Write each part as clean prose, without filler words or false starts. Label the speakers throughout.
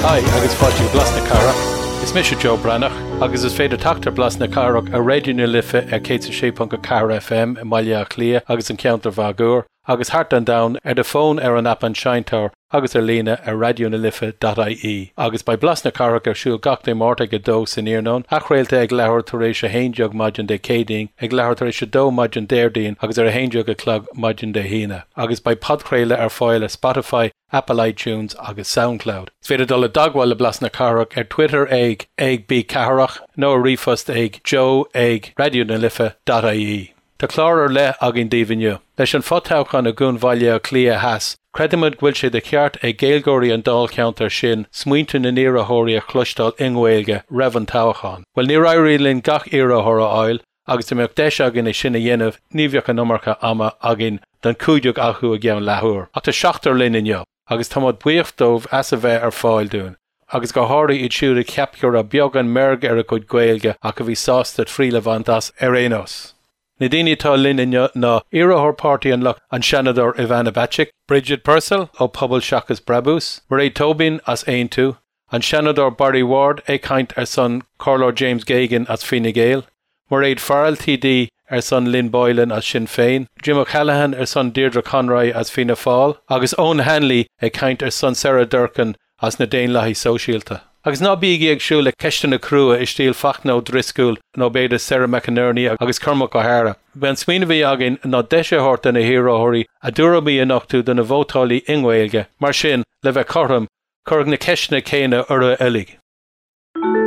Speaker 1: Hi agus fáilte go Blas na Cathrach. Is mise Joe Breathnach agus is féidir teacht ar Blas na Cathrach ar Raidió na Life ar 106.4 FM i mBaile Átha Cliath agus an ceantar máguaird agus thart an domhan ar do fón ar an aip An Seinnteoir agus ar líne ar raidionalife.ie. Agus beidh Blas na Cathrach ar siúl gach Dé Máirt ag 2 san iarnóin, athchraolta ag leathuair tar éis 11 maidin Dé Céadaoin, ag leathuair tar éis 2 maidin Déardaoin agus ar 11 a chlog maidin Dé hAoine. Agus beidh podchraoladh ar fáil ar Spotify, Apple iTunes agus Soundcloud. Is féidir dul i dteagmháil le Blas na Cathrach ar Twitter ag ag bcathrach nó ar ríomhphost ag joe ag raidionalife.ie. Tá clár ar leith againn daoibh inniu. Leis an fho-toghchán i gCuan Bhaile Átha Cliath Theas, creidimid go bhfuil sé de cheart ag Gaeilgeoirí an dáilcheantair sin smaointe na n-iarrthóirí a chloisteáil i nGaeilge roimh an toghchán. Bhuel, níor éirigh linn gach iarrthóir a fháil agus dá mbeadh deis againn é sin a dhéanamh ní bheadh an iomarca ama againn don chúigear acu i gceann leathuair. Ach tá seachtar linn inniu agus táimid buíoch dóibh as a bheith ar fáil dúinn, agus go háirithe iad siúd a cheap go raibh beagán meirge ar a gcuid Gaeilge ach a bhí sásta triail a bhaint as ar aon nós. Na daoine atá linn inniu ná iarrthóir Páirtí an Lucht an Seanadóir Ivana Bacik, Bridget Purcell ó Pobal Seachas Brabús, Mairéad Tóibín as Aontú, an Seanadóir Barry Ward ag caint ar son Comhairleoir James Geoghegan as Fine Gael, Mairéad Farrell TD ar son Lynn Boylan as Sinn Féin, Jim O'Callaghan ar son Deirdre Conroy as Fianna Fáil agus Eoghan Hanley ag caint ar son Sarah Durcan as na Daonlathaigh Sóisialta. Agus ná bígí ag súil le ceisteanna crua i stíl Fachtna Ó Drisceoil nó b'fhéidir Sarah McInerney agus Cormac Ó hEadhra. B'é an smaoineamh a bhí againn ná deis a thabhairt do na hiarrthóirí a dtuairimí a nochtadh do na vótálaí i nGaeilge. Mar sin, le bheith cothrom, cuireadh na ceisteanna céanna orthu uilig.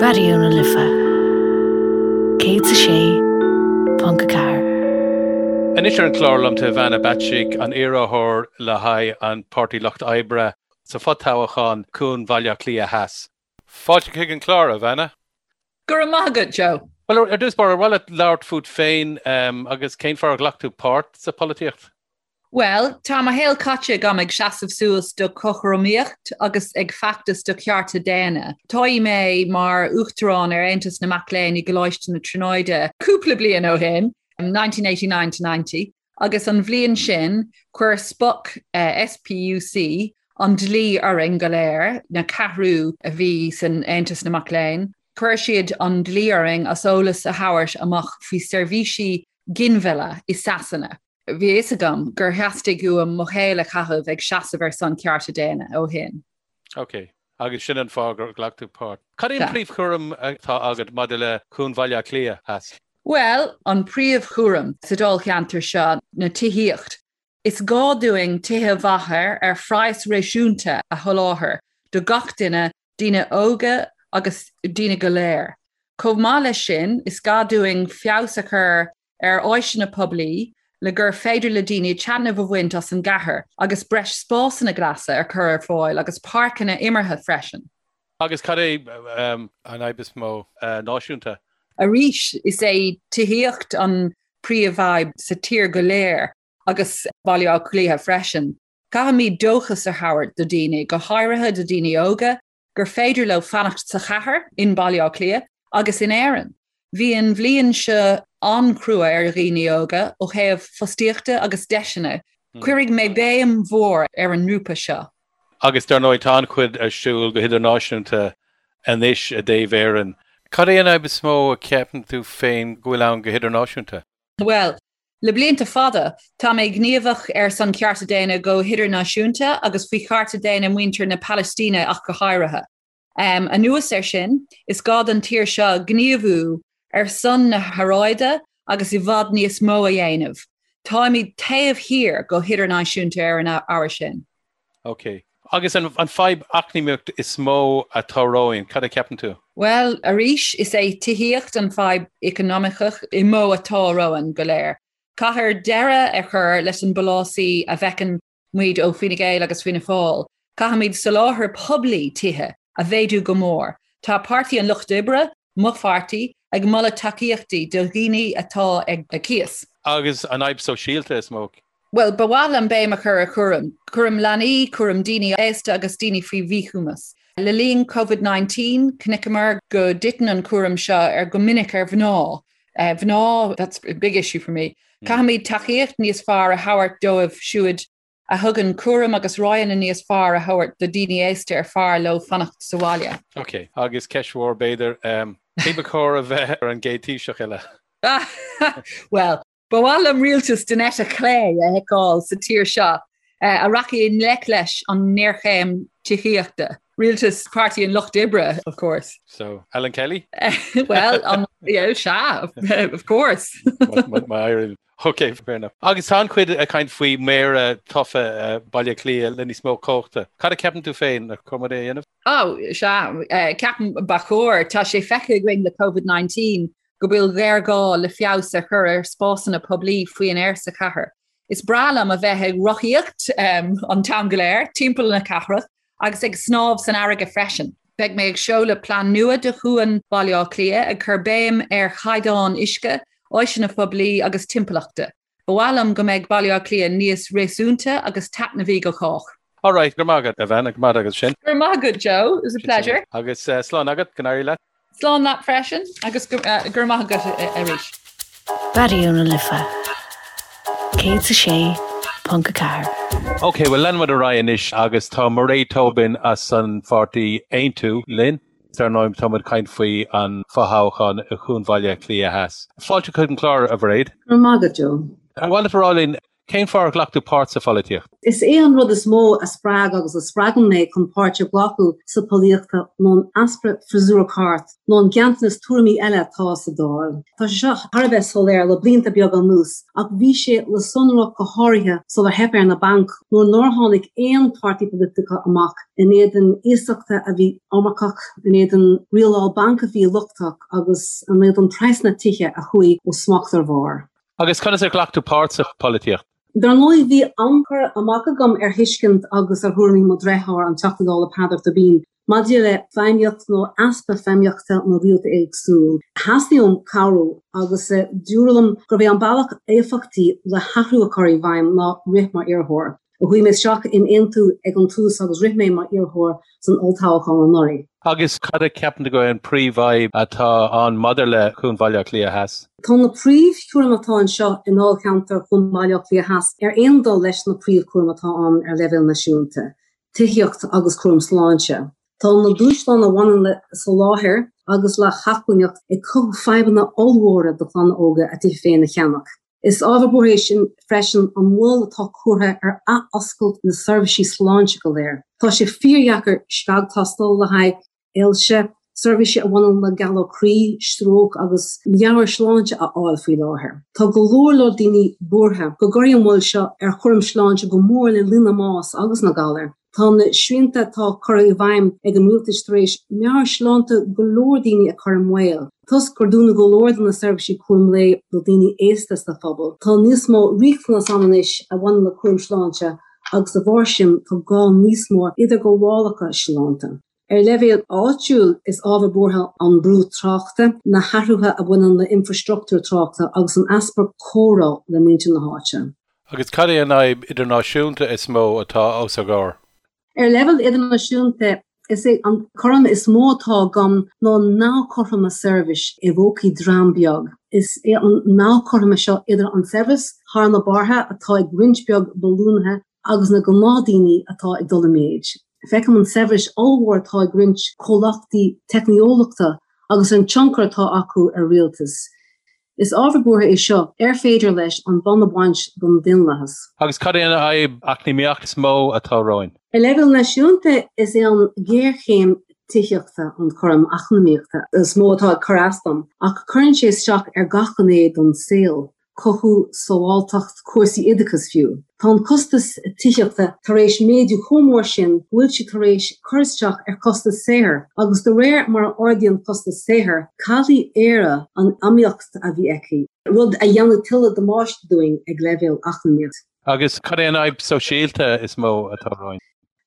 Speaker 2: Raidió na Life 106.4.
Speaker 1: Anois ar an chlár liom tá Ivana Bacik, an iarrthóir le haghaidh an Páirtí Lucht Oibre sa fho-toghchán Cuan Bhaile Átha Cliath Theas. Fáilte chuig an chlár, Ivana.
Speaker 3: Go raibh maith agat, Joe.
Speaker 1: Bhuel, ar dtús báire, ar mhaith leat labhairt fút féin agus cén fáth ar ghlac tú páirt sa pholaitíocht?
Speaker 3: Bhuel, tá mo shaol caite agam ag seasamh suas do chothromaíocht agus ag feachtas do chearta daonna. Toghadh mé mar Uachtarán ar Aontas na Mac Léinn i gColáiste na Tríonóide cúpla bliain ó shin, 1989 to 90, agus an bhliain sin chuir SPUC, SPUC, an dlí orainn go léir, na ceathrú a bhí san Aontas na Mac Léinn, chuir siad an dlí orainn as eolas a thabhairt amach faoi seirbhísí ginmhilleadh i Sasana. Bhí a fhios agam gur theastaigh uaim mo shaol a chaitheamh ag seasamh ar son cearta daonna ó shin.
Speaker 1: Ok. Agus sin an fáth gur ghlac tú páirt. Cad é an príomhchúram atá agat maidir le Cuan Bhaile Átha Cliath Theas?
Speaker 3: Bhuel, an príomhchúram sa dáilcheantar seo na tithíocht. Is gá dúinn tithe mhaithe ar phraghas réasúnta a sholáthar do gach duine daoine óga agus daoine go léir. Chomh maith leis sin, is gá dúinn feabhas a chur ar áiseanna poiblí le gur féidir le daoine taitneamh a bhaint as an gcathair agus breis spásanna glasa a chur ar fáil agus páirceanna imeartha freisin.
Speaker 1: Agus cad é an fhadhb is mó náisiúnta?
Speaker 3: Arís, is é tithíocht an príomhfhadhb sa tír go léir agus Baile Átha Cliath freisin. Caithfimid dóchas a thabhairt do daoine, go háirithe do daoine óga, gur féidir leo fanacht sa chathair, in Baile Átha Cliath agus in Éirinn. Bhí an bhliain seo an-chrua ar dhaoine óga ó thaobh fostaíochta agus deiseanna. Cuirfidh mé béim mhór ar an ngrúpa seo.
Speaker 1: Agus dar ndóigh tá an-chuid ar siúl go hidirnáisiúnta anois i dtaobh Éireann. Cad é an fhadhb is mó a cheapann tú féin go bhfuil ann go hidirnáisiúnta?
Speaker 3: Bhuel, le blianta fada, tá mé gníomhach ar son cearta daonna go hidirnáisiúnta agus faoi chearta daonna muintir na Palaistíne ach go háirithe. Anuas air sin, is gá don tír seo gníomhú ar son na haeráide agus i bhfad níos mó a dhéanamh. Táimid taobh thiar go hidirnáisiúnta ar an ábhar sin.
Speaker 1: Ok. Agus an fadhb eacnamaíocht is mó atá romhainn, cad a cheapann tú?
Speaker 3: Bhuel, arís, is é tithíocht an fadhb eacnamaíoch is mó atá romhainn go léir. Caithfear deireadh a chur leis an bpolasaí a bhfeiceann muid ó Fine Gael agus Fianna Fáil. Caithfimid soláthar poiblí tithe a mhéadú go mór. Tá Páirtí an Lucht Oibre, mo pháirtí, ag moladh tacaíochtaí do dhaoine atá ag cíos.
Speaker 1: Agus an fhadhb sóisialta is mó?
Speaker 3: Bhuel, ba mhaith liom béim a chur ar chúram. Cúram leanaí, cúram daoine aosta agus daoine faoi mhíchumas. Le linn Covid-19, chonaiceamar go dtiteann an cúram seo ar go minic ar mhná. Mhná, that's a big issue for me. Caithfimid tacaíocht níos fearr a thabhairt dóibh siúd. A thugann cúram agus roghanna níos fearr a thabhairt do daoine aosta ar fearr leo fanacht sa bhaile.
Speaker 1: Ok, agus ceist mhór b'fhéidir, cé ba chóir a bheith ar an gcéad Taoiseach eile?
Speaker 3: Bhuel, ba mhaith liom rialtas den eite chlé a fheiceáil sa tír seo a rachaidh i ngleic leis an ngéarchéim tithíochta. Rialtas Páirtí an Lucht Oibre, of course.
Speaker 1: So, Alan Kelly?
Speaker 3: Well, um, yeah, sea, of course.
Speaker 1: My Ok, fair enough. Agus tá an-chuid ag caint faoi méara tofa Baile Átha Cliath le níos mó cumhachta. Cad a ceapann tú féin ar chóir é a dhéanamh?
Speaker 3: Oh, sea, ceapaim ba chóir. Tá sé feicthe againn le Covid-19 go bhfuil géarghá le feabhas a chur ar spásanna poiblí faoin aer sa chathair. Is breá liom a bheith ag rothaíocht an t-am go léir timpeall na cathrach agus ag snámh san fharraige freisin. Beidh mé ag seoladh plean nua do Chuan Bhaile Átha Cliath, ag cur béim ar chaighdeán uisce, áiseanna poiblí agus timpeallachta. Ba mhaith liom go mbeidh Baile Átha Cliath níos réasúnta agus taitneamhaí do chách.
Speaker 1: Alright, go raibh maith agat, a Bhean, go raibh maith agat sin.
Speaker 3: Go raibh maith agat, Joe. It was a pleasure.
Speaker 1: Agus slán agat, go n-éirí leat.
Speaker 3: Slán leat freisin agus go raibh maith agat arís.
Speaker 2: Raidió na Life 106.4.
Speaker 1: Ok, bhuel leanfaidh muid ar aghaidh anois agus tá Mairéad Tobin as an pháirtí Aontú linn. Dar ndóigh tá muid ag caint faoi an fothoghchán i Chuan Bhaile Átha Cliath Theas. Fáilte chuig an chlár, a Mhairéad.
Speaker 4: Go raibh maith agat, Joe.
Speaker 1: Ar mhaith leat a rá linn Cén fáth ar ghlac tú páirt sa pholaitíocht?
Speaker 4: Is é an rud is mó a spreag agus a spreagann mé chun páirt a ghlacadh sa pholaitíocht ná an easpa freasúra ceart nó an ganntanas tuairimí eile atá sa Dáil. Tá sé seo thar a bheith soiléir le blianta beaga anuas ach bhí sé le sonrú go háirithe sular theip ar na bainc nuair nár tháinig aon páirtí polaitiúil amach in éadan iasachta a bhí iomarcach, in éadan rialáil banc a bhí lochtach agus in éadan praghsanna tithe a chuaigh ó smacht ar bharr.
Speaker 1: Agus conas ar ghlac tú páirt sa pholaitíocht?
Speaker 4: Dar ndóigh, bhí an-chur amach agam ar thuiscint agus ar thuairimí mo dhreatháir, an Teachta Dála Peadar Tóibín, maidir le feidhmíocht nó easpa feidhmíochta na rialtas éagsúil. Theastaigh uaim cabhrú agus dúradh liom gurbh é an bealach éifeachtaí le hathrú a chur i bhfeidhm ná rith mar iarrthóir. Chuaigh mé isteach in Aontú ag an tús agus rith mé mar iarrthóir san olltoghchán anuraidh.
Speaker 1: Agus cad a cheapann tú go é an príomhfhadhb atá ann maidir le Cuan Bhaile Átha Cliath Theas?
Speaker 4: Tá na príomhchúraim atá anseo i ndáilcheantar Chuan Bhaile Átha Cliath Theas ar aon dul leis na príomhchúraim atá ann ar leibhéal náisiúnta, tithíocht agus cúram sláinte. Tá na dúshláin a bhaineann le soláthar agus le hacmhainneacht ag cothú fadhbanna ollmhóra do chlanna óga a dtithe féin a cheannach. Is ábhar buartha é sin freisin an mhoill atá curtha ar athoscailt na seirbhísí sláinte go léir. Tá sé fíordheacair scagthástáil le haghaidh ailse, seirbhísí a bhaineann le galar croí, stróc agus meabhairshláinte a fháil faoi láthair. Tá go leor leor daoine buartha go gcuirfidh an mhoill seo ar chúram sláinte go mór le líon na mbás agus na galar. Tá na srianta atá curtha i bhfeidhm ag an rialtas tar éis meabhairshláinte go leor daoine a chur i mbaol. Toisc gur dúnadh go leor de na seirbhísí cúram lae do dhaoine aosta sa phobal, tá níos mó riachtanas ann anois a bhaineann le cúram sláinte agus de bharr sin tá gá níos mó idirghabhálacha sláinte. Ar leibhéal áitiúil, is ábhar buartha an brú tráchta, na hathruithe a bhaineann le infreastruchtúr tráchta agus an easpa comhrá le muintir na háite.
Speaker 1: Agus cad é an fhadhb idirnáisiúnta is mó atá os ár gcomhair?
Speaker 4: Ar leibhéal idirnáisiúnta, is é an cúram is mó atá agam ná an neamhchothroime saibhris i bpócaí dream beag. Is é an neamhchothroime seo idir an saibhreas thar na bearta atá ag roinnt beag billiúnaithe agus na gnáthdaoine atá ag dul i méid. Feicim an saibhreas ollmhór atá ag roinnt comhlachtaí teicneolaíochta agus an tionchar atá acu ar rialtais. Is ábhar buartha é seo ar féidir leis an bonn a bhaint den daonlathas.
Speaker 1: Agus cad é an fhadhb eacnamaíoch is mó atá romhainn?
Speaker 4: Ar leibhéal náisiúnta, is é an ghéarchéim tithíochta an cúram eacnamaíochta is mó atá ag cur as dom, ach cuireann sé isteach ar gach gné den saol. cothú, sábháilteacht, cúrsaí oideachais fiú. Tá an costas tithíochta tar éis méadú chomh mór sin go bhfuil sé tar éis cur isteach ar chostas saothair agus de réir mar a ardaíonn costas saothair, caillfidh Éire an iomaíocht a bhí aici, rud a dhéanfaidh tuilleadh damáiste dúinn ag leibhéal eacnamaíoch.
Speaker 1: Agus cad é an fhadhb sóisialta is mó atá romhainn?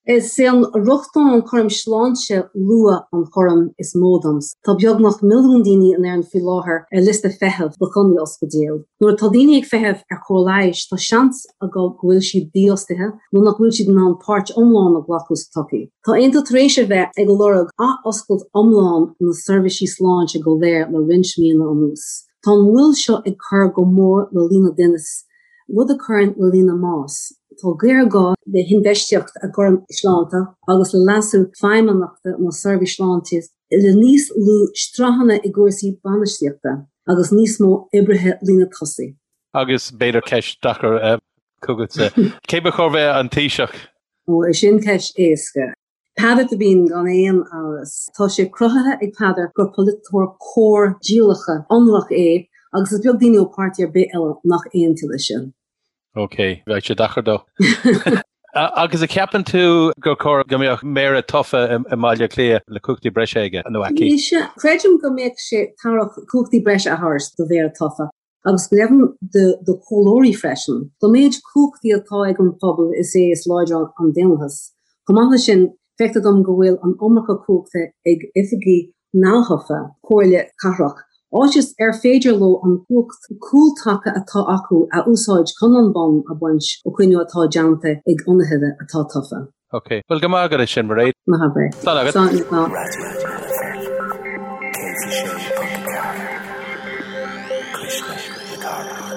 Speaker 4: Is é an rochtain an cúram sláinte luath an cúram is mó domsa. Tá beagnach milliún daoine in Éirinn faoi láthair ar liosta feithimh do choinní ospidéil. Nuair atá daoine ag feitheamh ar chóir leighis, tá seans acu go bhfuil siad dífhostaithe nó nach bhfuil siad in ann páirt iomlán a ghlacadh sa tsochaí. Tá Aontú tar éis a bheith ag lorg ath-oscailt iomlán na seirbhísí sláinte go léir le roinnt míonna anuas. Tá an mhoill seo ag cur go mór le líon na dtinneas, rud a chuireann le líon na mbás. Tá géarghá le hinfheistíocht i gcúram sláinte agus le leasú feidhmeannachta na seirbhíse sláinte le níos lú sraitheanna i gcúrsaí bainistíochta agus níos mó oibrithe líne tosaigh.
Speaker 1: Agus b'fhéidir ceist deacair chugatsa, cé ba chóir bheith an Taoiseach?
Speaker 4: Ó, sin ceist éasca. Peadar Tóibín gan aon amhras. Tá sé cruthaithe ag Peadar gur polaiteoir cóir díolachta ionraic é agus is beag daoine ó páirtí ar bith eile nach aontaíonn leis sin.
Speaker 1: Ok, bheadh sé deacair dó. Agus an gceapann tú gur chóir go mbeadh méara tofa i mBaile Átha Cliath le cumhachtaí breise aige nó aici?
Speaker 4: Sea, creidim go mbeadh sé tairbheach cumhachtaí breise a thabhairt do mhéara tofa. agus go deimhin do chomhairleoirí freisin. Don méid cumhachtaí atá ag an phobal is é is láidre an daonlathas. Chomh maith leis sin, feictear dom go bhfuil an iomarca cumhachta ag oifigigh neamhthofa comhairle cathrach, áit is ar féidir leo an chumhacht cúltaca atá acu a úsáid chun an bonn a bhaint ó chinneadh atá déanta ag ionadaithe atá tofa.
Speaker 1: Ok. Bhuel, go maith agat as sin, Mairéad.
Speaker 4: Ná habair é.
Speaker 1: Slán agat.
Speaker 4: Slán, slán.
Speaker 5: Raidió na Life 106.4, Cuisle na Cathrach.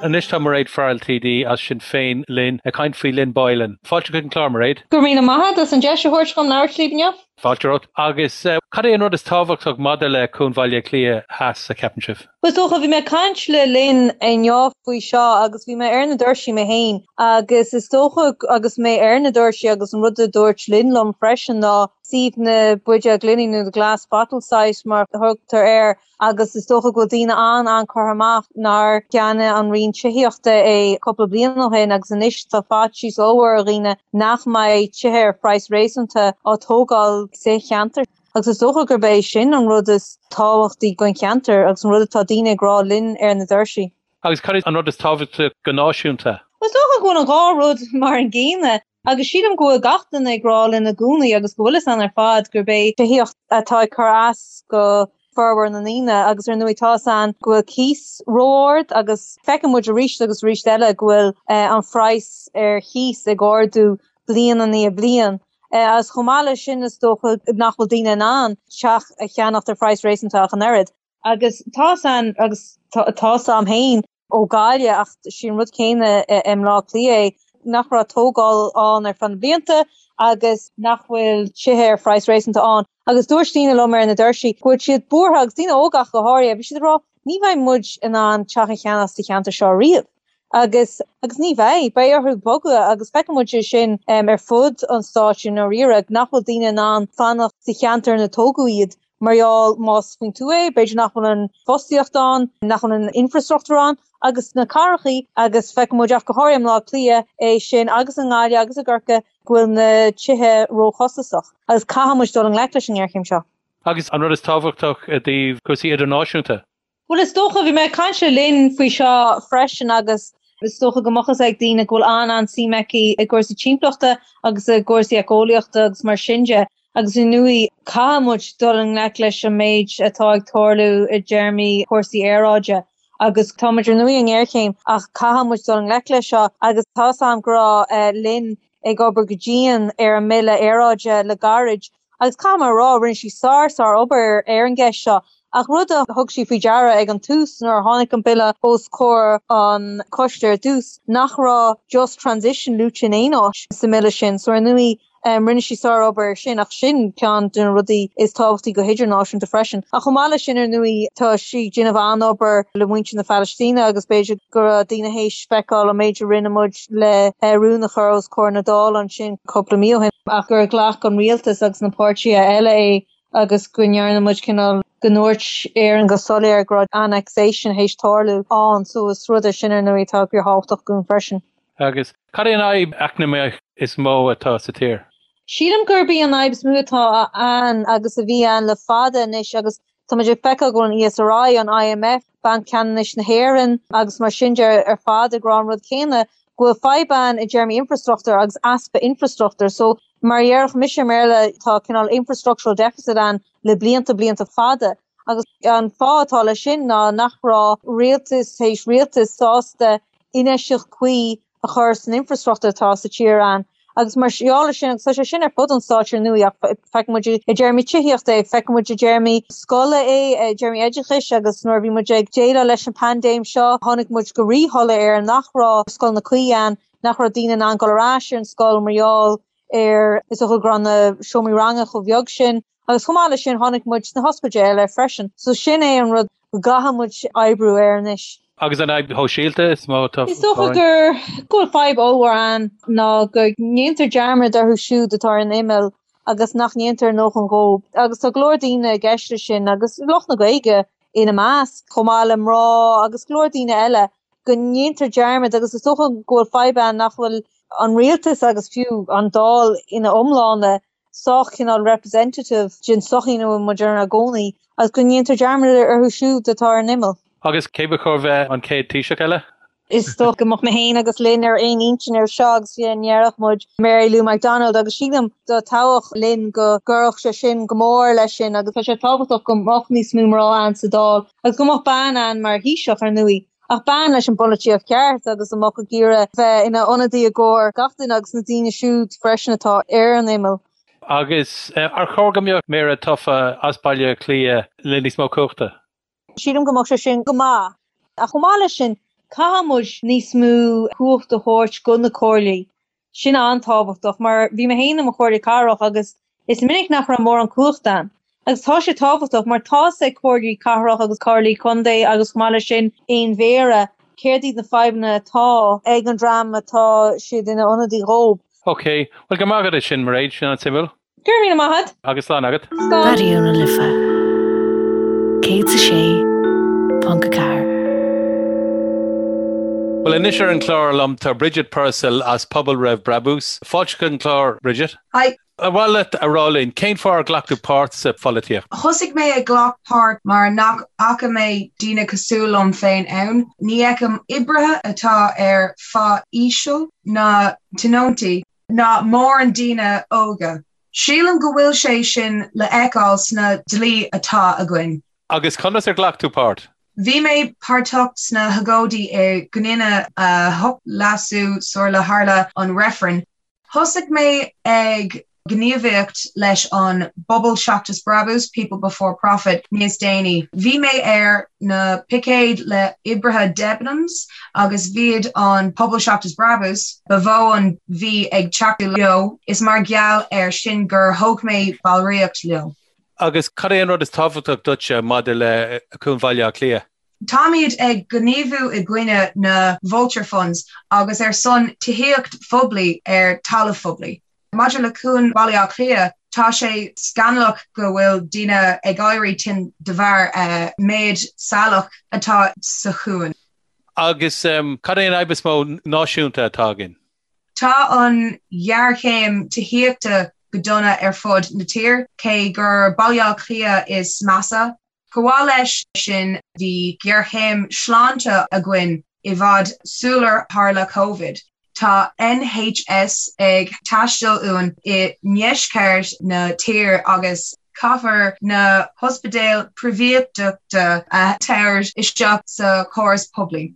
Speaker 1: Anois tá Mairéad Farrell TD as Sinn Féin linn ag caint faoi Lynn Boylan. Fáilte chuig an chlár, Mairéad.
Speaker 6: Go raibh míle maith agat as an deis a thabhairt dhom labhairt libh inniu.
Speaker 1: Fáilte romhat. Agus cad é an rud is tábhachtach maidir le Cuan Bhaile Átha Cliath Theas, a cheapann sibh?
Speaker 6: Bhuel, is dócha, bhí mé ag caint le Lynn inniu faoi seo agus bhí mé ar na doirsí mé féin agus is dócha agus mé ar na doirsí agus an rud a dúirt Lynn liom freisin ná suíomh na buidéal gloine nó the glass bottle site mar a thugtar air agus is dócha go bhfuil daoine an-an-curtha amach nár cheannaigh an Roinn Tithíochta é cúpla bliain ó shin agus anois tá faitíos ollmhór ar dhaoine nach mbeidh tithe ar phraghas réasúnta á tógáil sa cheantar. Agus is dócha gurb é sin an rud is tábhachtaí don cheantar agus an rud atá daoine ag rá linn ar na doirsí.
Speaker 1: Agus cad é an rud is tábhachtaí go náisiúnta?
Speaker 6: Is dócha go bhfuil an dhá rud mar an gcéanna agus sílim go bhfuil gach duine ag rá linn i gcónaí agus go bhfuil fhios a'inn ar fad gurb é tithíocht atá ag cur as go formhór na ndaoine agus ar ndóigh tá fhios a'inn go bhfuil cíos ró-ard agus feiceann muid arís agus arís eile go bhfuil an phraghas ar chíos ag ardú bliain i ndiaidh bliain. Agus chomh maith leis sin is dócha nach bhfuil daoine in ann teach a cheannacht ar phraghas réasúnta ach an oiread. Agus tá fhios a'inn, agus tá fhios a'm féin ó Ghaillimh ach sé an rud céanna i mBleá Cliath é, nach raibh tógáil ann ar feadh na blianta agus nach bhfuil tithe ar phraghas réasúnta ann. Agus dúirt daoine liom ar na doirsí go bhfuil siad buartha, agus daoine óga ach go háirithe, bhí siad ag rá ní bheidh muid in ann teach a cheannach sa cheantar seo riamh. Agus, agus ní bheidh, beidh orthu bogadh agus feiceann muid é sin ar fud an stáit i ndáiríre, nach bhfuil daoine in ann fanacht sa cheantar ina tógadh iad mar gheall más faoin tuath é, b'fhéidir nach bhfuil an fostaíocht ann, nach bhfuil an infreastruchtúr ann agus sna cathrachaí agus feiceann muid ach go háirithe i mBleá Cliath é sin agus i nGaillimh agus i gCorcaigh go bhfuil na tithe róchostasach agus caithfidh muid dul i ngleic leis an ngéarchéim seo.
Speaker 1: Agus an rud is tábhachtach i dtaobh cúrsaí idirnáisiúnta?
Speaker 6: Bhuel, is dócha, bhí mé ag caint le Lynn faoi seo freisin agus is dócha go mbeadh fhios ag daoine go bhfuil an-an-suim aici i gcúrsaí timpeallachta agus i gcúrsaí éiceolaíochta agus mar sin de agus ar ndóigh caithfidh muid dul i ngleic leis an méid atá ag tarlú i dtéarmaí cúrsaí aeráide agus tá muid ar ndóigh i ngéarchéim ach caithfidh muid dul i ngleic leis seo agus tá fhios a'm go raibh Lynn ag obair go dian ar an mBille Aeráide le gairid Agus caithfidh mé a rá, rinne sí sár, sár obair ar an gceist seo. Ach rud a thug sí faoi deara ag an tús, nuair a tháinig an bille os comhair an choiste ar dtús, nach raibh just transition luaite in aon áit sa mbille sin. So ar ndóigh, rinne sí sár obair ar sin, ach sin ceann de na rudaí is tábhachtaí go hidirnáisiúnta freisin. Ach chomh maith leis sin, ar ndóigh, tá sí ag déanamh an-obair le muintir na Palaistíne agus b'fhéidir go raibh daoine théis feiceáil an méid a rinne muid le rún a chur os comhair na Dála ansin cúpla mí ó shin. ach gur ghlac an rialtas agus na páirtithe eile é agus go ndearna muid cineál, go ndúirt Éirinn go soiléir go raibh annexation théis tarlú ann. So is rud é sin ar ndóigh atá fíorthábhachtach dúinn freisin.
Speaker 1: Agus cad é an fhadhb eacnamaíoch is mó atá sa tír?
Speaker 6: Sílim gurb í an fhadhb is mó atá ann agus a bhí ann le fada anois agus Tá muid ag feiceáil go bhfuil an ESRI, an IMF, Banc Ceannais na hÉireann agus mar sin de ar fad ag rá an rud céanna, go bhfuil fadhb ann i dtéarmaí infreastruchtúir agus easpa infreastruchtúir. So, mar a déarfadh mise i mBéarla, tá cineál infrastructural deficit ann le blianta, blianta fada. Agus an fáth atá leis sin ná nach raibh rialtas théis rialtais sásta infheistíocht cuí a chur san infreastruchtúr atá sa tír ann. Agus mar gheall ar sin, agus tá sé sin ar fud an stáit ar ndóigh, ach feiceann muid i dtéarmaí tithíochta é, feiceann muid i dtéarmaí scoile é, i dtéarmaí oideachais agus nuair a bhí muid ag déileáil leis an paindéim seo, tháinig muid go ríshoiléir ar nach raibh scoileanna cuí ann, nach raibh daoine in ann dul ar ais ar an scoil mar gheall ar, is dócha go raibh na seomraí ranga chomh beag sin. Agus chomh maith leis sin, tháinig muid sna hospidéil air freisin. So sin é an rud go gcaithfidh muid oibriú air anois.
Speaker 1: Agus an fhadhb shóisialta is mó atá
Speaker 6: Is dócha gur go bhfuil fadhb ollmhór ann ná go ndéantar dearmad orthu siúd atá ar an imeall agus nach ndéantar a ndóthain dhóibh. Agus tá go leor daoine i gceist leis sin agus lucht na Gaeilge ina measc, chomh maith le mná agus go leor daoine eile, go ndéantar dearmad agus is dócha go bhfuil fadhb ann nach bhfuil an rialtas agus fiú an Dáil ina iomláine sách cineál representative den tsochaí ina bhfuil muid inár gcónaí agus go ndéantar dearmad orthu siúd atá ar an imeall.
Speaker 1: Agus cé ba chóir bheith an chéad Taoiseach eile?
Speaker 6: Is dócha go mbeadh mé féin agus Lynn ar aon intinn ar seo agus fiú ndéarfadh muid Mary Lou McDonald agus sílim dá dtoghfadh Lynn go gcuirfeadh sé sin go mór leis sin agus tá sé tábhachtach go mbeadh níos mó mná ann sa Dáil agus go mbeadh bean ann mar Thaoiseach ar ndóigh. Ach bean leis an bpolaitíocht cheart agus a mbeadh ag iarraidh bheith ina ionadaí i gcomhair gach duine agus na daoine siúd freisin atá ar an imeall.
Speaker 1: Agus ar chóir go mbeadh Méara tofa as Baile Átha Cliath le níos mó cumhachta?
Speaker 6: Sílim go mbeadh sé sin go maith. Ach chomh maith leis sin, caithfidh muid níos mó cumhacht a thabhairt go na comhairlí. Sin an-tábhachtach mar bhí mé féin i mo chomhairle cathrach agus is minic nach raibh mórán cumhachta ann. Agus tá sé tábhachtach mar tá's ag comhairlí cathrach agus comhairlí contae agus chomh maith leis sin aon mhéara céard iad na fadhbanna atá ag an dream atá siad ina ionadaí dhóibh.
Speaker 1: Ok, bhuel go raibh maith agat as sin Mairéad, sin an-suimiúil.
Speaker 6: Go raibh míle maith agat.
Speaker 1: Agus slán agat.
Speaker 6: Slán.
Speaker 2: Raidió na Life 106.4.
Speaker 1: Bhuel anois ar an chlár liom tá Bridget Purcell as Pobal Roimh Brabús. Fáilte chuig an chlár, Bridget.
Speaker 7: Hi.
Speaker 1: Ar mhaith leat a rá linn cén fáth ar ghlac tú páirt sa pholaitíocht?
Speaker 7: Thosaigh mé ag glacadh páirt mar nach bhfaca mé daoine cosúil liom féin ann. Ní fheicim oibrithe atá ar phá íseal ná tionóntaí. ná mórán daoine óga. Sílim go bhfuil sé sin le feiceáil sna dlí atá againn.
Speaker 1: Agus conas ar ghlac tú páirt?
Speaker 7: Bhí mé páirteach sna hagóidí i gcoinne 8 Leasú sular tharla an reifreann. Thosaigh mé ag gníomhaíocht leis an bPobal Seachas Brabús, People Before Profit, níos déanaí. Bhí mé ar na picéid le oibrithe Debenhams agus b'iad an Pobal Seachas Brabús ba mhó a bhí ag tacú leo, is mar gheall air sin gur thóg mé ballraíocht leo.
Speaker 1: Agus cad é an rud is tábhachtach duitse maidir le Cuan Bhaile Átha Cliath?
Speaker 7: Táimid ag gníomhú i gcoinne na vulture funds agus ar son tithíocht phoiblí ar talamh phoiblí. Maidir le Cuan Bhaile Átha Cliath, tá sé scannalach go bhfuil daoine ag éirí tinn de bharr méid salach atá sa chuan.
Speaker 1: Agus cad é an fhadhb is mó náisiúnta atá againn?
Speaker 7: Tá an ghéarchéim tithíochta go dona ar fud na tíre, cé gur Baile Átha Cliath is measa. Chomh maith leis sin, bhí géarchéim sláinte againn i bhfad sular tharla Covid. Tá NHS ag teastáil uainn i ndeisceart na tíre agus caithfear na hospidéil príobháideachta a thabhairt isteach sa chóras poiblí.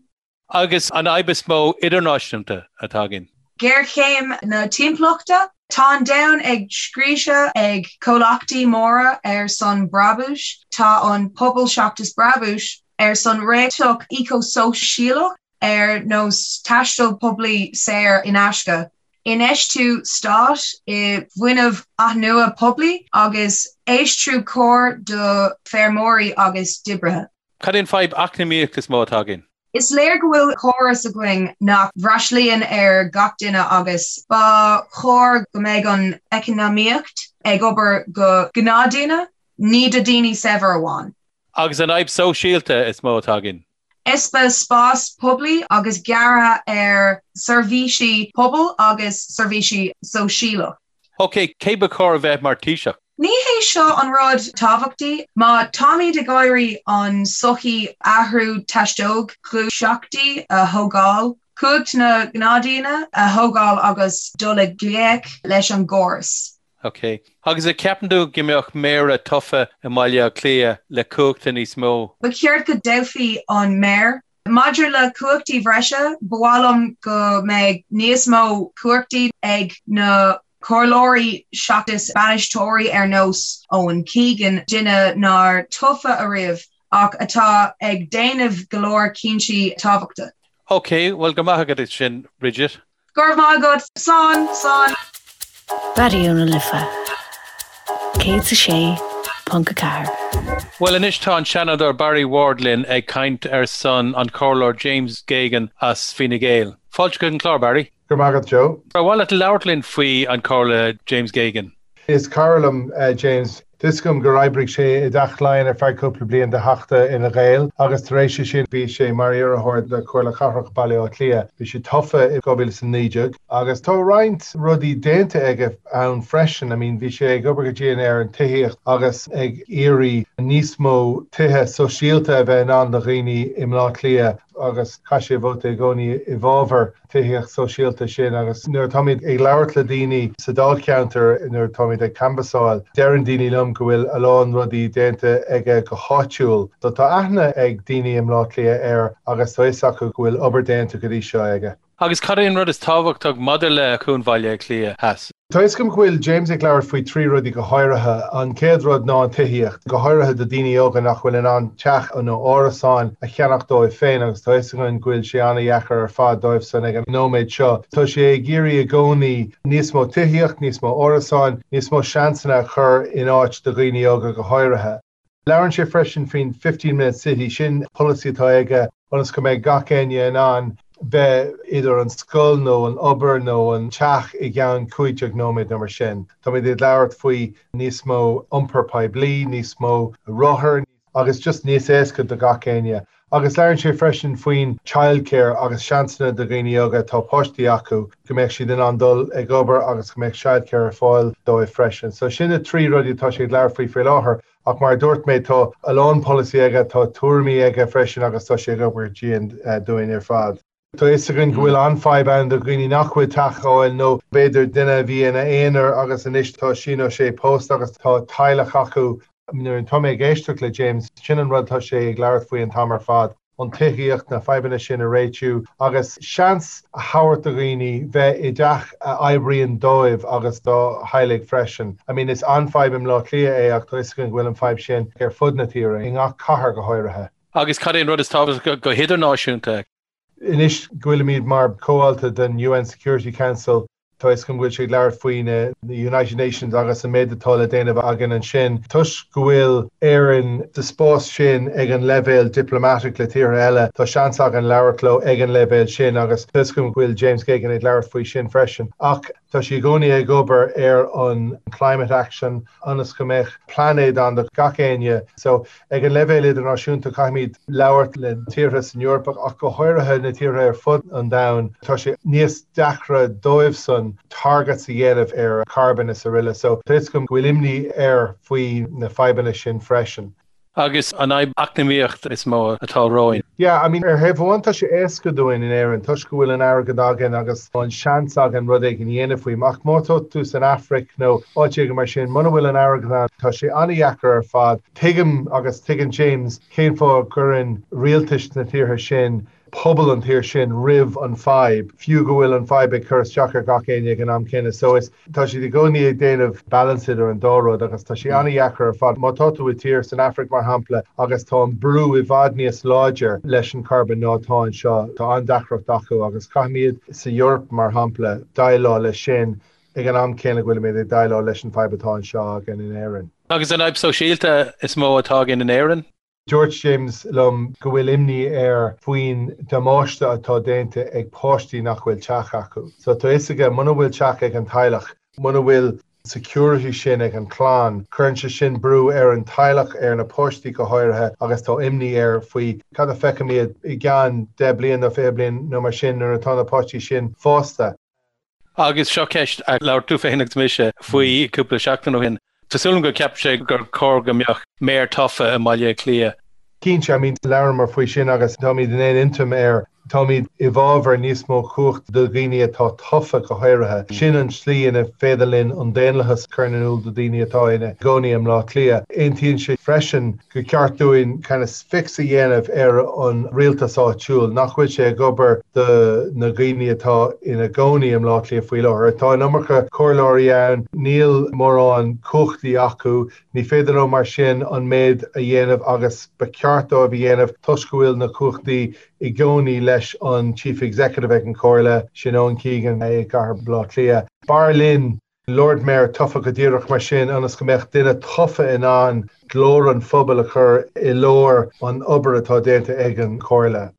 Speaker 1: Agus an fhadhb is mó idirnáisiúnta atá againn?
Speaker 7: Géarchéim na timpeallachta. Tá an domhan ag scriosadh ag comhlachtaí móra ar son brabúis. Tá an Pobal Seachas Brabús ar son réiteach éiceashóisialach ar nós taisteal poiblí saor in aisce, infheistiú stáit i bhfuinneamh athnuaite poiblí agus aistriú cóir do feirmeoirí agus d'oibrithe.
Speaker 1: Cad é an fadhb eacnamaíoch is mó atá againn?
Speaker 7: Is léir go bhfuil córas againn nach bhfreastlaíonn ar gach duine agus ba chóir go mbeadh an eacnamaíocht ag obair do ghnáthdhaoine, ní do daoine saibhir amháin.
Speaker 1: Agus an fhadhb sóisialta is mó atá againn?
Speaker 7: Easpa spás poiblí agus gearradh ar seirbhísí pobail agus seirbhísí sóisialach.
Speaker 1: Ok, cé ba chóir a bheith mar Taoiseach?
Speaker 7: Ní hé seo an rud tábhachtaí. Má táimid ag iarraidh an sochaí athrú theastódh gluaiseachtaí a thógáil, cumhacht na gnáthdhaoine a thógáil agus dul i ngleic leis an gcóras.
Speaker 1: Ok. Agus an gceapann tú go mbeadh méara tofa i mBaile Átha Cliath le cumhachta níos mó?
Speaker 7: Ba cheart go dtoghfaí an méara. Maidir le cumhachtaí bhreise, ba mhaith liom go mbeidh níos mó cumhachtaí ag na comhairleoirí seachas bainisteoirí ar nós Owen Keegan, duine nár tofa ariamh ach atá ag déanamh go leor cinntí tábhachta.
Speaker 1: Ok, bhuel go maith agat sin, Bridget.
Speaker 7: Go raibh maith agat. Slán, slán.
Speaker 2: Raidió na Life 106.4.
Speaker 1: Bhuel anois tá an Seanadóir Barry Ward linn ag caint ar son an Comhairleoir James Geoghegan as Fine Gael. Fáilte chuig an clár, Barry.
Speaker 8: Go raibh maith agat, Joe.
Speaker 1: Ar mhaith leat labhairt linn faoi an Comhairle James Geoghegan?
Speaker 8: Is cara liom James. Tá 'fhios agam gur oibrigh sé i dTeach Laighean ar feadh cúpla bliain do Theachta Fhine Gael agus tar éis sin bhí sé mar iarrthóir do Chomhairle Cathrach Bhaile Átha Cliath. Bhí sé tofa i 2019 agus tá roinnt rudaí déanta aige ann freisin. I mean bhí sé ag obair go dian ar an tithíocht agus ag iarraidh níos mó tithe sóisialta a bheith in ann do dhaoine i mBleá Cliath agus chaith sé vóta i gcónaí i bhfabhar tithíocht sóisialta sin agus nuair atáimid ag labhairt le daoine sa dáilcheantar, nuair atáimid ag canbhasáil, deireann daoine liom go bhfuil a lán rudaí déanta aige go háitiúil. So tá aithne ag daoine i mBleá Cliath air agus tá fhios acu go bhfuil obair déanta go dtí seo aige.
Speaker 1: Agus cad é an rud is tábhachtach maidir le Cuan Bhaile Átha Cliath Theas?
Speaker 8: Tá fhios agam go bhfuil James ag labhairt faoi thrí rudaí go háirithe. An chéad rud ná an tithíocht, go háirithe do daoine óga nach bhfuil in ann teach nó árasáin a cheannach dóibh féin agus tá fhios againn go bhfuil sé an-dheacair ar fad dóibh san ag an nóiméad seo. Tá sé ag iarraidh i gcónaí níos mó tithíocht, níos mó árasáin, níos mó seansanna a chur in áit do dhaoine óga go háirithe. Labhrann sé freisin faoin 15 minute city, sin polasaí atá aige ionas go mbeidh gach éinne in ann bheith idir an scoil nó an obair nó an teach i gceann 15 nóiméad nó mar sin. Táimid ag labhairt faoi níos mó iompar poiblí, níos mó rothar agus just níos éasca do gach éinne. Agus labhrann sé freisin faoin childcare agus seansanna do dhaoine óga atá páistí acu, go mbeadh siad in ann dul ag obair agus go mbeadh childcare ar fáil dóibh freisin. So sin na trí rudaí atá sé ag labhairt faoi faoi láthair. Ach mar a dúirt mé, tá a lán polasaí aige, tá tuairimí aige freisin agus tá sé ag obair dian dúinn ar fad. Tá fhios againn go bhfuil an-fhadhb ann do dhaoine nach bhfuil teach a fháil nó b'fhéidir duine a bhí ina aonar agus anois tá sí nó sé pósta agus tá teaghlach acu. Nuair atá mé ag éisteacht le James, sin an rud atá sé ag labhairt faoi an t-am ar fad. an tithíocht, na fadhbanna sin a réitiú agus seans a thabhairt do dhaoine bheith i dteach a oibríonn dóibh agus dá theaghlaigh freisin. I mean is an-fhadhb i mBleá Cliath é ach tá fhios againn go bhfuil an fadhb sin ar fud na tíre, i ngach cathair go háirithe.
Speaker 1: Agus cad é an rud is tábhachtaí go hidirnáisiúnta?
Speaker 8: Anois go bhfuilimid mar chomhalta den UN Security Council, Tá fhios agam go bhfuil sé ag labhairt faoi na United Nations agus an méid atá le déanamh againn ansin. Toisc go bhfuil Éirinn sa spás sin ag an leibhéal diplomatic le tíortha eile, tá seans againn labhairt leo ag an leibhéal sin agus tá fhios agam go bhfuil James Geoghegan ag labhairt faoi sin freisin. Ach tá sé i gcónaí ag obair ar an climate action ionas go mbeadh plainéad ann do gach éinne. So Ag an leibhéal idirnáisiúnta, caithfimid labhairt le tíortha san Eoraip ach go háirithe na tíortha ar fud an domhain. Tá sé níos deacra dóibhsan targets a dhéanamh ar carbon is aroile. So tá fhios agam go bhfuil imní air faoi na fadhbanna sin freisin.
Speaker 1: Agus an fhadhb eacnamaíocht is mó atá romhainn.
Speaker 8: Yeah, I mean, ar thaobh amháin tá sé éasca dúinn in Éirinn toisc go bhfuil an airgead againn agus an seans againn rud éigin a dhéanamh faoi. Ach má tá tú san Afraic nó áit éigin mar sin, muna bhfuil an airgead ann, tá sé an-dheacair ar fad. Tuigim agus tuigeann James cén fáth a gcuireann rialtais na tíortha sin pobal an tír sin roimh an fadhb, fiú go bhfuil an fadhb ag cur isteach ar gach éinne ag an am céanna. So is, tá siad i gcónaí ag déanamh balance idir an dá rud agus tá sé an-dheacair ar fad. Má tá tú i tír san Afraic mar shampla agus tá an brú i bhfad níos láidir leis an carbon ná atá anseo, tá an-deacracht acu agus caithfimid sa Eoraip mar shampla déileáil leis sin ag an am céanna go bhfuilimid ag déileáil leis an fadhb atá anseo againn in Éirinn.
Speaker 1: Agus an fhadhb sóisialta is mó atá againn in Éirinn?
Speaker 8: Dúirt James liom go bhfuil imní air faoin damáiste atá déanta ag páistí nach bhfuil teach acu. So tá fhios aige muna bhfuil teach ag an teaghlach, muna bhfuil security sin ag an chlann, cuireann sé sin brú ar an teaghlach, ar na páistí go háirithe agus tá imní air faoi cad a feicfimid i gceann 10 bliain nó 20 bliain nó mar sin nuair atá na páistí sin fásta.
Speaker 1: Agus seo ceist a labhair tú féin agus mise faoi cúpla seachtain ó shin. Tá súil agam go gceapann sé gur chóir go mbeadh méara tofa i mBaile Átha Cliath.
Speaker 8: Cinnte, I mean, labhramar faoi sin agus táimid in aon intinn air. Táimid i bhfabhar níos mó cumhacht do dhaoine atá tofa go háirithe. Sin an tslí ina féidir linn an daonlathas a chur in iúl do dhaoine atá ina gcónaí i mBleá Cliath. Aontaíonn sé freisin gur ceart dúinn kind of fix a dhéanamh ar an rialtas áitiúil, nach bhfuil sé ag obair do na dhaoine atá ina gcónaí i mBleá Cliath faoi láthair. Tá an iomarca comhairleoirí ann, níl mórán cumhachtaí acu, ní féidir leo mar sin an méid a dhéanamh agus ba cheart dóibh a dhéanamh toisc go bhfuil na cumhachtaí i gcónaí leis an Chief Executive ag an Chomhairle, sin Eoin Keegan i gcathair Bhaile Átha Cliath. B'fhearr linn Lord Mayor tofa go díreach mar sin ionas go mbeadh duine tofa in ann glór an phobail a chur i lár an obair atá déanta ag an Chomhairle.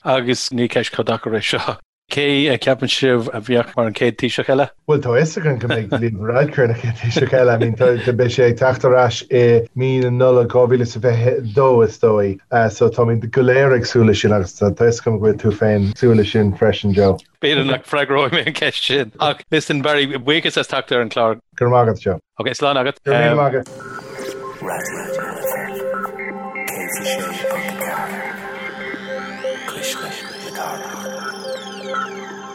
Speaker 1: Agus ní ceist chomh deacair é seo. Cé a cheapann sibh a bheadh mar an chéad Taoiseach eile?
Speaker 8: Bhuel, tá a fhios againn go mbeidh Leo Varadkar ina chéad Taoiseach eile. I mean, tá, beidh sé ag teacht ar ais i mí na Nollag 2022, is dóigh. So táimid go léir ag súil leis sin agus tá a fhios agam go bhfuil tú féin ag súil leis sin freisin, Joe.
Speaker 1: B'fhéidir nach bhfreagróidh mé an cheist sin. Ach listen, Barry, buíochas as teacht ar an chlár.
Speaker 8: Go raibh maith agat, Joe.
Speaker 1: Ok, slán agat.
Speaker 8: Go raibh míle maith agat.
Speaker 5: Raidió na Life 106.4 Cuisle na Cathrach.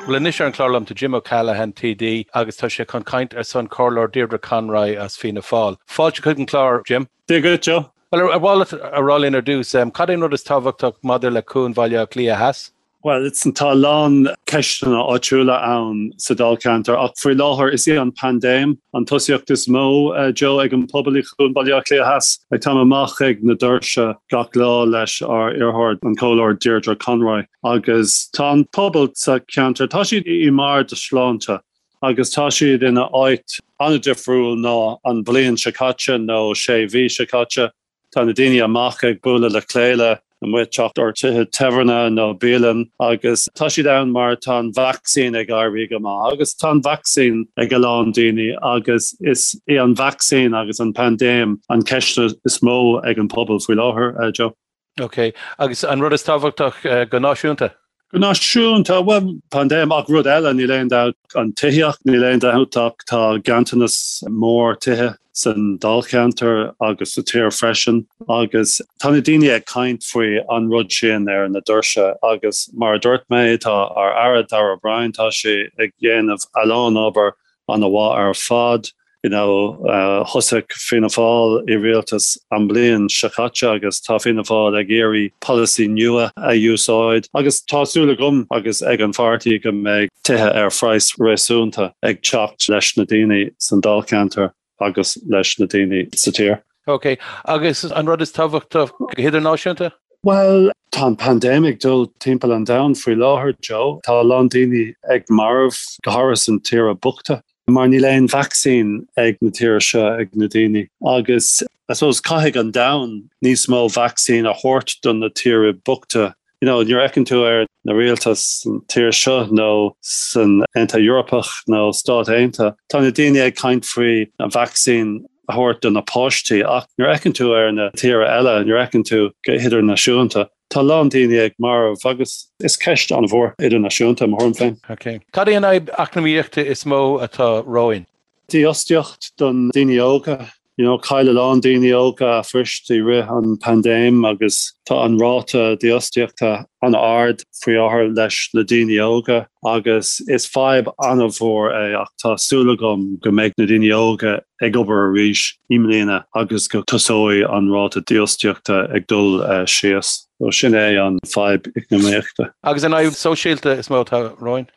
Speaker 1: Bhuel anois ar an chlár liom tá Jim O'Callaghan TD agus tá sé chun caint ar son Comhairleoir Deirdre Conroy as Fianna Fáil. Fáilte chuig an chlár, Jim.
Speaker 9: Dia dhuit, Joe.
Speaker 1: Bhuel, ar mhaith leat a rá linn ar dtús, cad é an rud is tábhachtach maidir le Cuan Bhaile Átha Cliath Theas?
Speaker 9: Bhuel, tá a lán ceisteanna áitiúla ann sa Dáilcheantar ach faoi láthair is í an paindéim an tosaíocht is mó, Joe, ag an pobal i gCuan Bhaile Átha Cliath Theas. Like, táim amach ag na doirse gach lá leis ár iarrthóir, an Comhairleoir Deirdre Conroy, agus tá an pobal sa cheantar, tá siad i mbarr a sláinte agus tá siad ina áit an-difriúil ná an bhliain seo caite nó sé mhí seo caite. Tá na daoine amach ag bualadh le chéile amuigh teacht ar tithe tábhairne nó bialann agus tá siad ann mar tá an vacsaín ag éirí go maith agus tá an vacsaín ag a lán daoine agus is í an vacsaín agus an paindéim an ceist is mó ag an pobal faoi láthair, Joe.
Speaker 1: Ok, agus an rud is tábhachtach go náisiúnta?
Speaker 9: Go náisiúnta, bhuel, paindéim ach rud eile, níl aon dabht, an tithíocht, níl aon dabht ach tá ganntanas mór tithe san dáilcheantar agus sa tír freisin agus tá na daoine ag caint faoi an rud sin ar na doirse agus mar a dúirt mé, tá ár Aire Darragh O'Brien, tá sé ag dhéanamh a lán obair an-mhaith ar fad. You know, thosaigh Fianna Fáil i rialtas an bhliain seo caite agus tá Fianna Fáil ag iarraidh polasaí nua a úsáid agus tá súil agam agus ag an pháirtí go mbeidh tithe ar phraghas réasúnta ag teacht leis na daoine san dáilcheantar agus leis na daoine sa tír.
Speaker 1: Ok, agus an rud is tábhachtach go hidirnáisiúnta?
Speaker 9: Bhuel, tá an paindéim ag dul timpeall an domhain faoi láthair, Joe. Tá a lán daoine ag marbh, go háirithe san tíortha bochta, mar níl aon vacsaín ag na tíortha seo ag na daoine. Agus I suppose caithfidh an domhan níos mó vacsaín a thabhairt do na tíortha bochta. You know, nuair a fheiceann tú ar na rialtais san tír seo nó san Aontas Eorpach nó Stáit Aontaithe, tá na daoine ag caint faoi an vacsaín a thabhairt do na páistí ach nuair a fheiceann tú ar na tíortha eile, nuair a fheiceann tú go hidirnáisiúnta, tá a lán daoine ag marbh agus is ceist an-mhór idirnáisiúnta, mo thuairim féin.
Speaker 1: Ok. Cad é an fhadhb eacnamaíochta is mó atá romhainn?
Speaker 9: Dífhostaíocht don daoine óga. You know, chaill a lán daoine óga a phoist i rith an paindéim agus tá an ráta dífhostaíochta an-ard faoi láthair leis na daoine óga agus is fadhb an-mhór é ach tá súil agam go mbeidh na daoine óga ag obair arís i mbliana agus go tosóidh an ráta dífhostaíochta ag dul síos. So sin é an fadhb eacnamaíochta.
Speaker 1: Agus an fhadhb sóisialta is mó atá romhainn?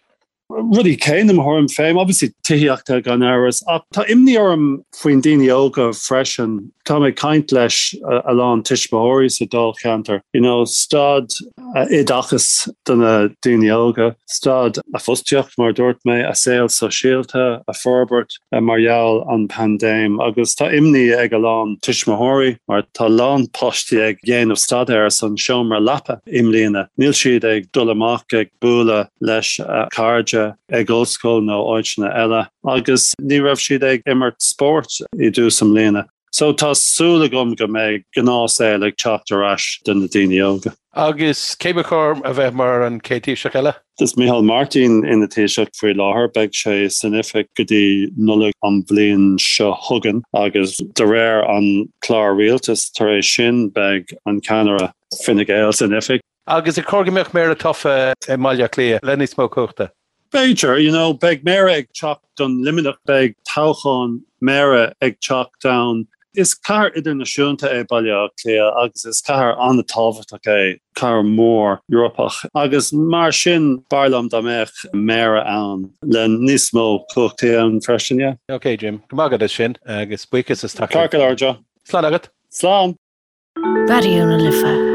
Speaker 9: Rudaí céanna, mo thuairim féin, obviously tithíochta gan amhras, ach tá imní orm faoin daoine óga freisin. Táim ag caint leis a lán tuismitheoirí sa dáilcheantar, you know, staid oideachais do na daoine óga, staid a fostaíocht, mar a dúirt mé, a saol sóisialta a forbairt mar gheall an paindéim agus tá imní ag a lán tuismitheoirí mar tá a lán páistí ag dhéanamh staidéar san seomra leapa i mbliana. Níl siad ag dul amach ag bualadh leis a cairde ag ollscoil nó áiteanna eile agus ní raibh siad ag imirt spóirt i dtús i mbliana. So tá súil agam go mbeidh gnáthshaol ag teacht ar ais do na daoine óga.
Speaker 1: Agus cé ba chóir a bheith mar an chéad Taoiseach eile?
Speaker 9: Is Micheál Martin ina Thaoiseach faoi láthair. Beidh sé san oifig go dtí Nollaig an bhliain seo chugainn agus de réir an clár rialtais tar éis sin beidh an ceannaire Fine Gael san oifig.
Speaker 1: Agus ar chóir go mbeadh méara tofa i mBaile Átha Cliath le níos mó cumhachta?
Speaker 9: B'fhéidir, you know, beidh méara ag teacht don Luimneach, beidh toghchán méara ag teacht ann. Is cathair idirnáisiúnta é Baile Átha Cliath agus is cathair an-tábhachtach é, cathair mhór Eorpach agus mar sin b'fhearr liom dá mbeadh méara ann le níos mó cumhachtaí ann freisin, yeah.
Speaker 1: Ok Jim, go maith agat as sin agus buíochas as
Speaker 9: teacht. Ceart go leor Joe.
Speaker 1: Slán agat.
Speaker 9: Slán.
Speaker 2: Raidió na Life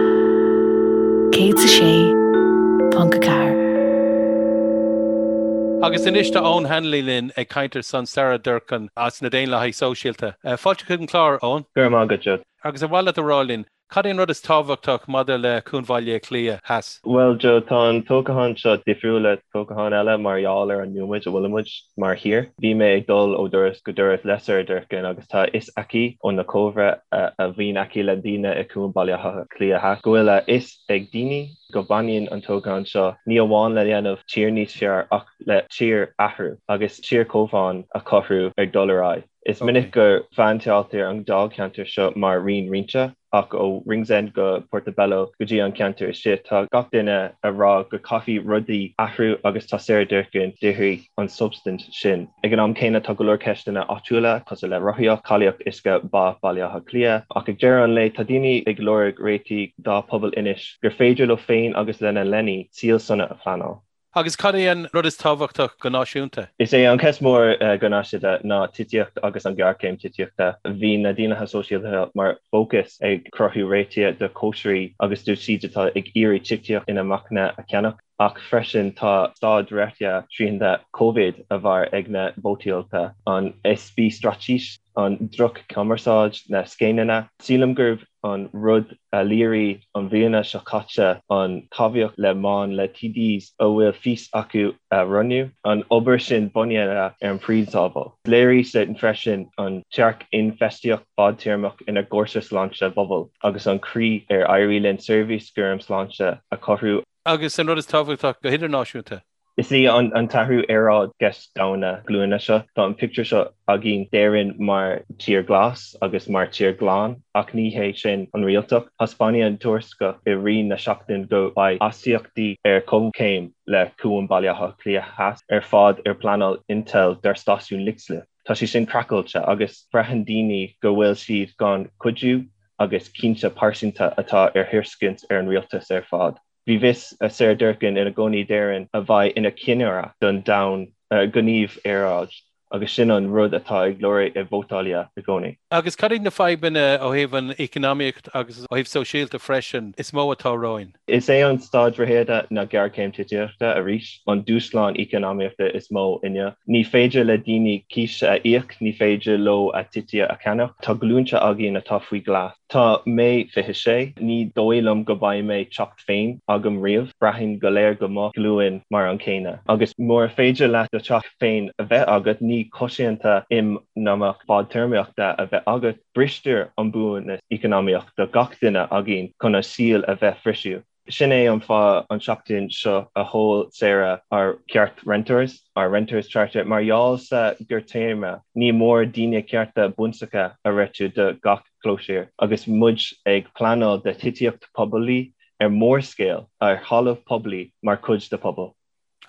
Speaker 2: 106.4.
Speaker 1: Agus anois tá Eoin Hanley linn ag caint ar son Sarah Durkan as na Daonlathaithe Sóisialta. Fáilte chuig an chlár, Eoin.
Speaker 10: Go raibh maith agat, Joe.
Speaker 1: Agus ar mhaith leat a rá linn, Cad é an rud is tábhachtach maidir le Cuan Bhaile Átha Cliath Theas?
Speaker 10: Bhuel, Joe, tá an toghchán seo difriúil le toghcháin eile mar gheall ar an nóiméad a bhfuilimid mar thír. Bhí mé ag dul ó doras go doras le Sarah Durkan agus tá a fhios aici ó na comhrá a bhíonn aici le daoine i Cuan Bhaile Átha Cliath Theas go bhfuil a fhios ag daoine go baineann an toghchán seo ní amháin le dhéanamh tír níos fearr ach le tír athrú agus tír comhbhá a chothú ar dul ar aghaidh. Is minic go bpéinteáiltear an dáilcheantar seo mar raon roinnte, ach ó Ringsend go Portobello go dtí an ceantar istigh, tá gach duine a rá go caithfidh rudaí athrú agus tá Sarah Durkan d'iarraidh an substaint sin. Ag an am céanna tá go leor ceisteanna áitiúla cosúil le rothaíocht, cáilíocht uisce Bá Bhaile Átha Cliath, ach ag deireadh an lae tá daoine ag lorg réitigh dá pobal anois gur féidir leo féin agus lena leanaí saol sona a phleanáil.
Speaker 1: Agus cad é an rud is tábhachtach go náisiúnta?
Speaker 10: Is é an cheist mór go náisiúnta ná tithíocht agus an ghéarchéim tithíochta. Bhí na Daonlathaithe Sóisialta mar fócas ag cruthú réitigh do chóisirí agus dóibh siúd atá ag iarraidh tithíocht inacmhainne a cheannach, ach freisin tá staid reatha srianta Covid a bharr ag na vótáilte, an easpa straitéis, an droch-chumarsáid, na scéimeanna. Sílim gurb an rud a léirigh an bhliana seo caite an tábhacht le mbaineann le TDs a bhfuil fís acu a roghnú, an obair sin bunaithe ar an bprionsabal. Léirigh sin freisin an tearc infheistíocht fadtéarmach inár gcúrsa sláinte phobail agus an chaoi ar éirigh linn seirbhís cúram sláinte a chothú.
Speaker 1: Agus an rud is tábhachtach go hidirnáisiúnta.
Speaker 10: Is í an t-athrú aeráid ceist domhanda glúine seo. Tá an pictiúr seo againn d'Éirinn mar tír glas agus mar tír glan, ach ní hé sin an réaltacht. Thaispeáin an tuarascáil i rith na seachtaine go mbeidh astaíochtaí ar comhchéim le Cuan Baile Átha Cliath Theas ar fad ar pleanáil Intel dár stáisiún Leixlip. Tá sé sin craiceáilte agus braitheann daoine go bhfuil siad gan cuidiú agus cinnte pearsanta atá ar thairiscint ar an rialtas ar fad. Bhí fís Sarah Durkan ina gcónaí d'Éirinn a bheidh ina ceannaire don domhan gníomh aeráid agus sin an rud atá ag lorg i vótálaithe i gcónaí.
Speaker 1: Agus cad iad na fadhbanna ó thaobh an eacnamaíocht agus ó thaobh sóisialta freisin is mó atá romhainn?
Speaker 10: Is é an staid reatha na géarchéim tithíochta arís an dúshlán eacnamaíochta is mó inniu. Ní féidir le daoine cíos a íoc, ní féidir leo a dtithe a cheannach. Tá glúnta againn atá faoi ghlas. Tá mé 26, ní dóigh liom go mbeidh mé teach féin agam riamh, braithim go léir go mo ghlúin mar an céanna. Agus mura féidir leat do teach féin a bheith agat, ní cosanta eacnamaíoch fadtéarmaíochta a bheith agat, bristear an buannas eacnamaíoch do gach duine againn chun a saol a bheith fisiú. Sin é an fáth an seachtain seo a sheol Sarah ár Ceart Renters, ár Renters Charter, mar gheall sa ghearrtéarma ní mór daoine cearta bunúsacha a réitiú do gach clóisír agus muid ag pleanáil do thithíocht poiblí ar mórscéal ar thalamh poiblí mar chuid de pobal.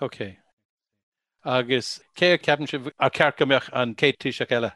Speaker 1: Ok. Agus cé a cheapann sibh ar cheart go mbeadh an chéad Taoiseach eile?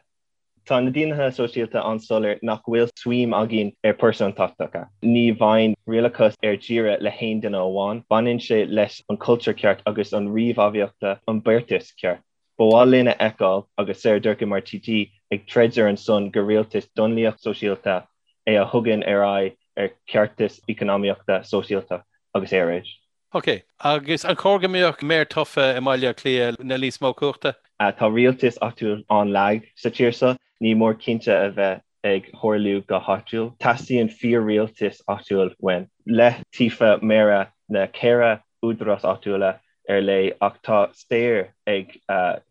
Speaker 10: Tá na Daonlathaithe Sóisialta an-soiléir nach bhfuil suim againn ar pearsantachtacha. Ní bhaineann rialachas ar deireadh le haon duine amháin. Baineann sé leis an cultúr ceart agus an ríomhfheidhmíochta, an beartas ceart. Ba mhaith linn a fheiceáil agus Sarah Durkan mar TD ag troid ar an son gur rialtas daonlathach sóisialta é a thugann ar aghaidh ar cheartas eacnamaíochta, sóisialta agus aeráid.
Speaker 1: Ok. Agus an chóir go mbeadh méara tofa i mBaile Átha Cliath le níos mó cumhachta?
Speaker 10: Tá rialtas áitiúil an-lag sa tír seo. Ní mór cinnte a bheith ag tharlú go háitiúil. Teastaíonn fíor-rialtas áitiúil uainn. Le tofa méara na ceithre údarás áitiúla ar leith ach tá stair ag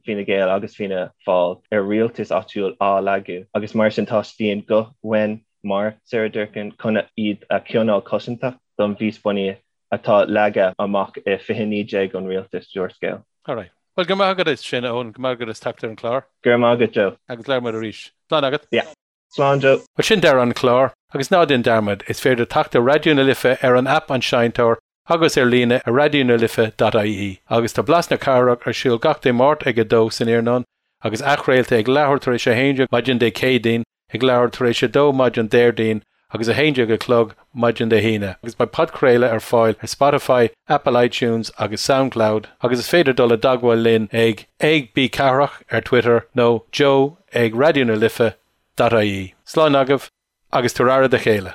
Speaker 10: Fine Gael agus Fianna Fáil ar rialtas áitiúil á lagú agus mar sin teastaíonn guth uainn mar Sarah Durkan chun iad a choinneáil cosantach don bhfís bunaithe atá leagtha amach i 2019 an rialtas d'úrscéal.
Speaker 1: Alright. Bhuel, go raibh maith agat as sin, a Eoin. Go raibh maith agat as teacht ar an chlár.
Speaker 10: Go raibh maith agat, Joe.
Speaker 1: Agus labhróidh muid arís. Slán agat.
Speaker 10: Yeah. Slán, Joe.
Speaker 1: Bhuel, sin deireadh an chláir. Agus ná déan dearmad, is féidir teacht ar Raidió na Life ar an aip An Seinnteoir. Agus ar líne ar raidionalife.ie agus tá Blas na Cathrach ar siúl gach Dé Máirt ag 2 san iarnóin agus athchraolta ag leathuair tar éis 11 maidin Dé Céadaoin, ag leathuair tar éis 2 maidin Déardaoin agus 11 a chlog maidin Dé hAoine agus beidh podchraoladh ar fáil ar Spotify, Apple iTunes agus Soundcloud agus is féidir dul i dteagmháil linn ag ag bcathrach ar Twitter nó joe ag raidionalife.ie. Slán agaibh agus tabhair aire do chéile.